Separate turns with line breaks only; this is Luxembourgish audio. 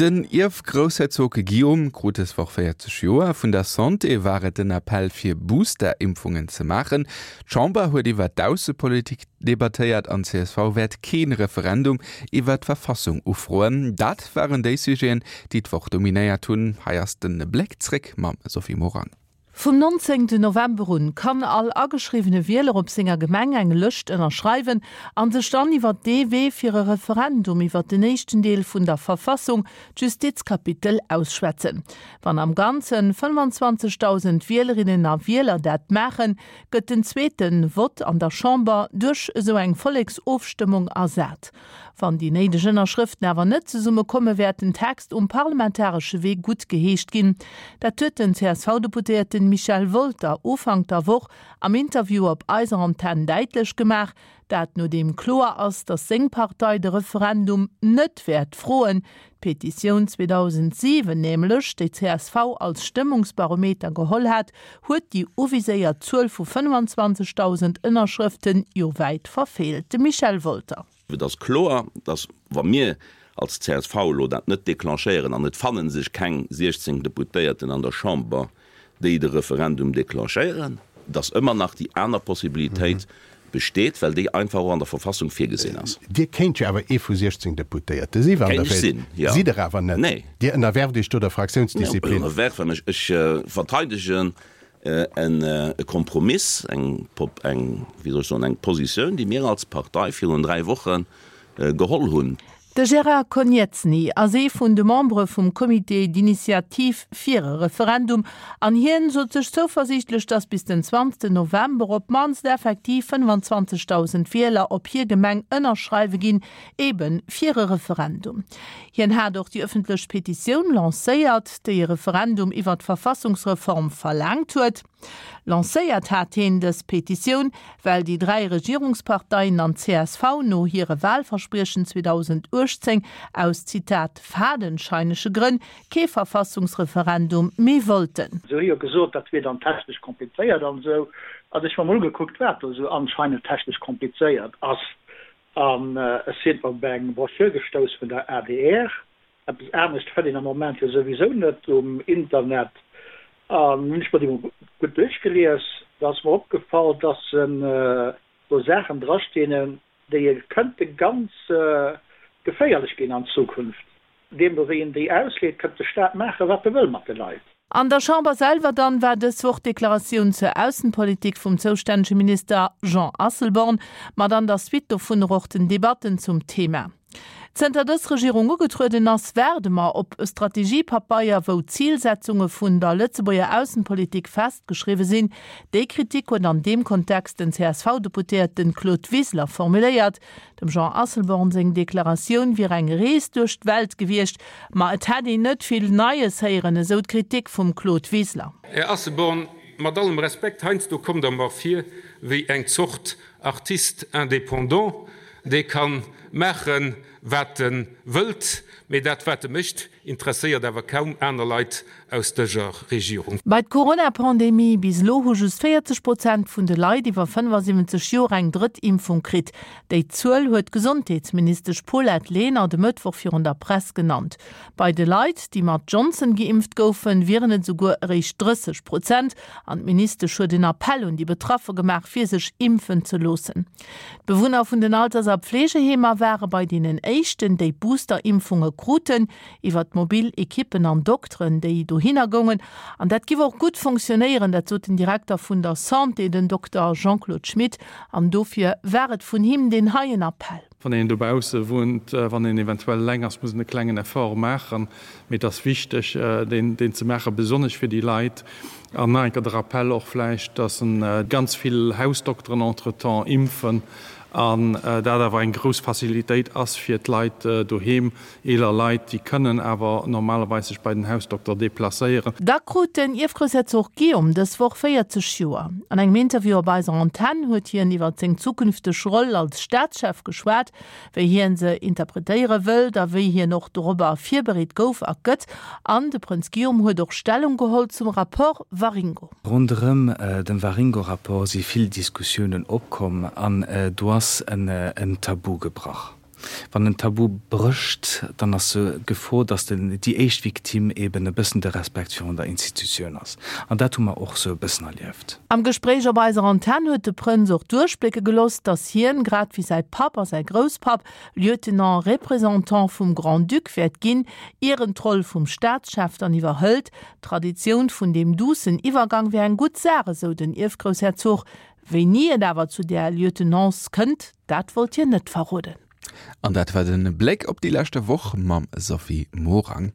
Den Ierfgroussherzog Guillaume krut dës Woch 40 Joer. Vun der Santé war et den Appell fir Booster-Impfungen ze maachen. D'Chamber huet iwwer d'Aussepolitik debattéiert an csv wäert kee Referendum iwwer d'Verfassung ufroen. Dat waren déi Sujeten, déi d'Woch dominéiert hunn. Hei ass de Bléck zréck mam Sophie Morang.
Vum 19 November un kann all ageschriwwene Wieler op senger Gemeng eng Lëscht ënnerschreiwen an sech dann iwwer dee Wee fir e Referendum iwwer den éischten Deel vun der Verfassung, d'Justizkapitel, ausschwätzen. Wann am Ganzen 25.000 Wielerinnen a Wieler dat maachen, gëtt den zweete Vott an der Chamber duerch esou eng Volleksofstëmmung ersat. Wann déi néideg Ënnerschrëften awer net zesumme komme wäert den Text um parlamentaresche Wee gutt geheescht ginn. Dat huet den CSV-Deputéierten Michel Wolter Ufank der Woch am Interview op eiser Antenn däitlech gemaach. Dat nodeem kloer ass, datt seng Partei de Referendum net wäert froen. D'Petitioun 2007 nämlech, déi csv als Stëmmungsbarometer geholl hat, huet déi uviséiert Zuel vu 25.000 Ënnerschrëften jo wäit verfeelt. De Michel Wolter.
Et ass kloer, datt wa mir als csv elo dat net declenchéieren an et fanne sech keng 16 Deputéierten an der Chamber, déi de Referendum declenchéieren, datt ëmmer nach déi aner Possibilitéit besteet, well déi einfach och an der Verfassung virgesinn ass.
Dir kéint jo awer ee vu 16 Deputéierte si wann Der
Kéint ech
wéilt.
sinn, jo.
Sidd Der awer net.
Nee.
Dir ënnerwerft Iech do der Fraktiounsdisziplin.
Ënnerwerfe mech? Ech verteidegen e Kompromiss, eng, eng, wéi soll ech soen, eng Positioun, déi mir als Partei virun 3 Woche geholl hunn.
De Gérard Konieczny ass ee vun de Membere vum Comité d'initiative fir e Referendum an hien sot sech zouversiichtlech, datt bis den 20 November op d'mannst effektiv 25.000 Wieler op hir Gemeng ënnerschreiwe ginn, ebe fir e Referendum. Hien hat och déi ëffentlech Petitioun lancéiert, déi e Referendum iwwer d'Verfassungsreform verlaangt huet. Lancéiert hat heen dës Petitioun, well déi 3 Regierungsparteien an d'CSV no hire Wahlverspriechen 2018 aus, Zitat, fadenscheinege Grënn kee Verfassungsreferendum méi wollten.
Se hu jo gesot, dat wier dann technesch komplizéiert an esou. An ech hu mer mol ugekuckt, wat do esou anscheinend technesch komplizéiert ass. An ech sinn op eng Broschür gestouss vun der adr. Eppes anescht fënnt een am Moment jo souwisou net um Internet. An hunn ech mer déi mol gutt duerchgelies, da ass mer opgefall, dass do Saachen drastinn, déi kënnte ganz geféierlech ginn an Zukunft. Deemno wéi een déi ausleet, kënnt de Staat maachen, wat e wëll mat de Leit.
An der Chamber selwer dann war dës Woch d'Deklaratioun zur Aussenpolitik vum zoustännege Minister Jean Asselborn, mat an der Suite dovunner och den Debatten zum Thema. Zënter dës Regierung ugetrueden ass, waarde mer op e Strategiepapeier, wou d'Zilsetzunge vun der Lëtzebuerger Aussenpolitik festgeschriwwe sinn. Déi Kritik huet an deem Kontext den CSV-Deputéierten Claude Wiseler formuléiert. Dem Jean Asselborn seng Deklaratioun wier eng Rees duerch d'Welt gewiescht, ma et hätt een net vill Neies héieren, esou d'Kritik vum Claude Wiseler.
Här Asselborn, mat allem Respekt, heiansdo kommt Der mer vir wéi eng Zort Artiste indépendant, dee ka maachen, wat e wëllt, mee dat, wat e mécht, interesséiert awer kaum aner Leit aus dëser Regierung.
Bei d'Corona-Pandemie, Bis elo hu just 40 Prozent vun de Leit iwwer 75 Joer eng drëtt Impfung kritt. Déi Zuel huet d'Gesondheetsministesch Paulette Lenert e Mëttwoch virun der Press genannt. Bei de Leit, déi mat Johnson geimpft goufen, wieren et esouguer eréischt 30 Prozent. An d'Ministesch huet en Appell un déi Betraffe gemaach, fir sech impfen ze loossen. D'Bewunner vun den Alters a Pflegeheemer ware bei deenen éischten, déi Booster-Impfunge kruten, iwwer d'mobil Ekippen an Dokteren, déi dohinner goungen. An dat giff och gutt fonctionnéieren, dat sot den Direkter vun der Santé, den Dokter Jean-Claude Schmit. An dofir war et vun him deen heien Appell.
Wann een dobausse wunnt, wann een eventuell eleng ass, muss een e klengen Effort maachen, mee et ass wichteg, deen ze maachen, besonnesch fir déi Leit. An nach eng Kéier de Rappell och vläicht, dass ganz vill Hausdokteren entretemps impfen an dat awer eng grouss Facilitéit ass fir d'Leit doheem, eeler Leit, déi kënnen awer normalerweis sech bei den Hausdokter deplacéieren.
Da krut den Ierfgroussherzog Guillaume dës Woch 40 Joer. An engem Interview op eiser Antenn huet hien iwwer seng zukünfteg Roll als Staatschef geschwat, wéi hien se interpretéiere wëllt a wéi hien och dorobber virbereet gouf a gëtt. An de Prënz Guillaume huet och Stellung geholl zum Rapport Waringo.
Ronderëm dem Waringo-Rapport si vill Diskussiounen opkomm an do ass en Tabu gebrach. Wann en Tabu brécht, dann ass sou d'Gefor, dass den, déi éischt Victime eben e bëssen de Respekt virun der Institutioun ass. An dat hu mer och sou e bëssen erlieft.
Am Gespréich op eiser Antenn huet de Prënz och duerchblécke gelooss, dass hien, grad wéi säi Papp a säi Grousspapp, Lieutenant représentant vum Grand-Duc wäert ginn, ier en d'Roll vum Staatschef dann iwwerhëlt. D'Traditioun vun deem duussen Iwwergang wär eng gutt Saach, esou den Ierfgroussherzog. Wéini et awer zu där Lieutenance kënnt, dat wollt hien net verroden.
An dat war de Bléck op déi leschte Woch mam Sophie Morang.